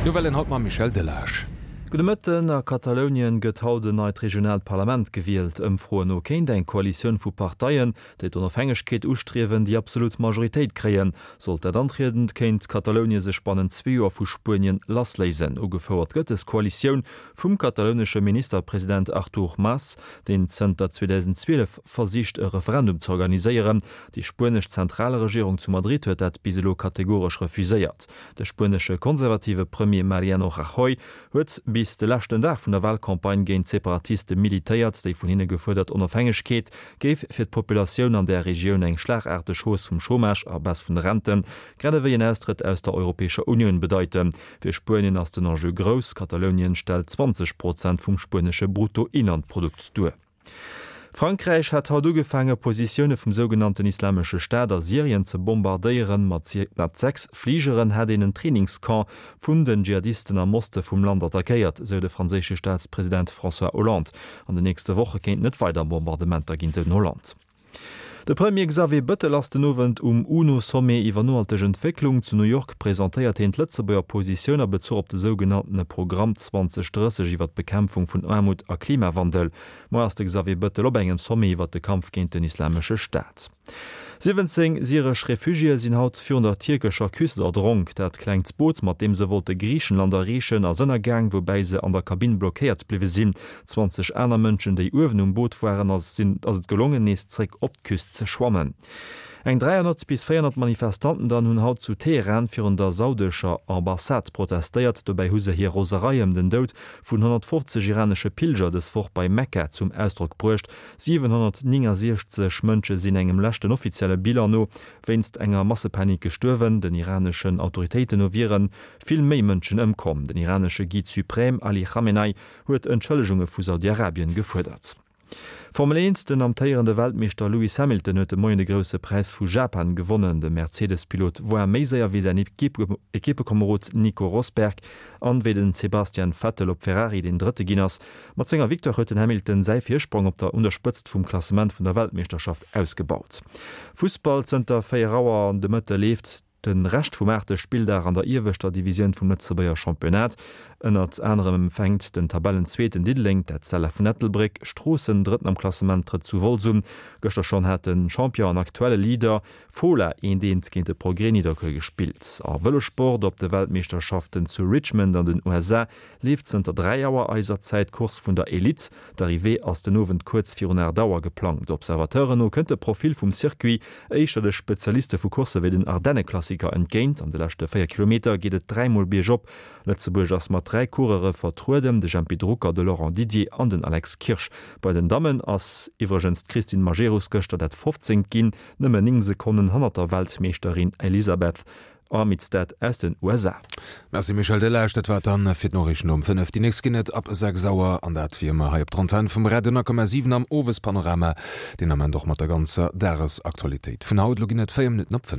D'Nouvellen haut mam Michel Delage. Gudde Mëtten. A Katalounien gëtt haut en neit regionaalt Parlament gewielt. Ëmfroen no kéint eng Koalitioun vu Parteien, déi d'Onofhängegkeet ustriewen, déi absolut Majoritéit kréien. Sollt dat antrieden, kéint Katalounie sech bannent zwee Joer vu Spuenien lassléisen. Ugefouert gëtt dës Koalitioun vum katalounesche Ministerpresident Artur Mas, deen zënter 2012 versicht e Referendum ze organiséieren. Déi spuenesch Zentralregierung zu Madrid huet dat bis elo kategoresch refuséiert. De spuenesche konservative Premier Mariano Rajoy huet bis de leschten Dag vun der Walcampagne géint d'Separatiste militéiert. Déi vun hinne gefuerdert Onofhängegkeet géif fir d'Populatioun an där Regioun eng schlagaarteg Hausse vum Chômage a Baisse vun de Renten, grad ewéi en Austrëtt aus der Europäescher Unioun bedeiten. Fir Spuenien ass den Enjeu grouss, Katalounien stellt 20 Prozent vum spuenesche Bruttoinlandprodukt duer. Frankräich hat haut ugefaange Positioune vum sougenannten Islamesche Staat a Syrien ze bombardéieren. Mat 6 Fligeren hätt een en Trainingscamp vun den Dschihadisten am Oste vum Land attackéiert, sou de franséische Staatspresident François Hollande. An den nächste Woche kéinten et weider Bombardementer ginn, sou den Hollande. De Premier Xavier Bëttel ass den Owend um UNO-Sommet iwwer nohalteg Entwécklung zu New York. Presentéiert hien d'Lëtzebuerger Positioun a Bezuch op de sougenanntene Programm 2030 iwwer d'Bekämpfung vun Aarmut a Klimawandel. Moar ass de Xavier Bëttel op engem Sommet iwwer de Kampf géint den Islamesche Staat. 17 syresch Refugiéë sinn haut virun der tierkescher Küst erdronk. Dat klengt Boot, mat deem se wollte Griichenland erreechen, ass ënnergaang, woubäi se an der Kabinn blockéiert bliwwe sinn. 20 aner Mënschen, déi uewen um Boot waren, ass ass et gelongen, nees zréck op d'Küst ze schwammen. Eng 300 bis 400 Manifestanten dann hunn haut zu Teheran virun der saudescher Ambassade protestéiert. Dobäi hu se hir Roserei ëm den Doud vun 150 iranesche Pilger dës Woch bei Mekka zum Ausdrock bruecht. 769 Mënsche sinn engem leschten offizielle Bilan no wéinst enger Massepanik gestuerwen. Den iraneschen Autoritéiten no wiere vill méi Mënschen ëmkomm. Den iranesche Guide suprême Ali Khamenei huet Entschëllegunge vu Saudi-Arabien gefuerdert. Formel 1, Den amtéierende Weltmeeschter Lewis Hamilton huet de Moien de Grousse Präis vu Japan gewonnen. De Mercedes-Pilot woar méi séier wéi säin Equippekomerod Nico Rosberg an wéi den Sebastian Vettel op Ferrari, deen Drëtte ginn ass. Mat senger Victoire huet den Hamilton säi Virsprong op der un der Spëtzt vum Klassement vun der Weltmeeschterschaft ausgebaut. Fussball, Zënter 4 Auer de Mëtte leeft De Rescht vum aachte Spilldag an der ieweschter Divisioun vum Lëtzebuerger Championnat. Ënnert anerem empfänkt den Tabellenzweeten Diddeleng d'Etzella vun Ettelbréck. Stroossen, Drëtten am Klassement, trëtt zu Wolz un. Gëschter schonn hat de Champion an aktuelle Leader Fola eent eent géint de Progrès Nidderkuer gespillt. A Vëlossport, Op de Weltmeeschterschaften zu Richmond an den USA leeft zënter 3 Auer eiser Zäit d'Course vun der Elite. D'Arrivée ass den Owend kuerz virun 8 Auer geplangt. Observateuren no kënnt de Profil vum Circuit éischter de Spezialiste vu Coursse wéi den Ardenneklassiker entgéint. An de leschte 4 Kilometer geet et dräimol biergop. Lëtzebuerg ass mat 3 Coureure vertrueden, de Jempy Drucker, de Laurent Didier an den Alex Kirsch. Bei den Dammen ass iwwregens d'Christine Majerus gëschter dat 15. ginn, nëmmen 9 Sekonnen hannert der Weltmeeschterin Elisabeth Armitstead aus den USA. Merci Michel Delage, dat war et dann fir d'Noriichten um 5. Déi nächst ginn et ab 6 Auer an dat wéi ëmmer hei op der Antenn vum Radio 10,7 am Owespanorama, deen Ament och mat der ganzer Dagesaktualitéit vun haut. Elo ginn et 4 Minutten op 5.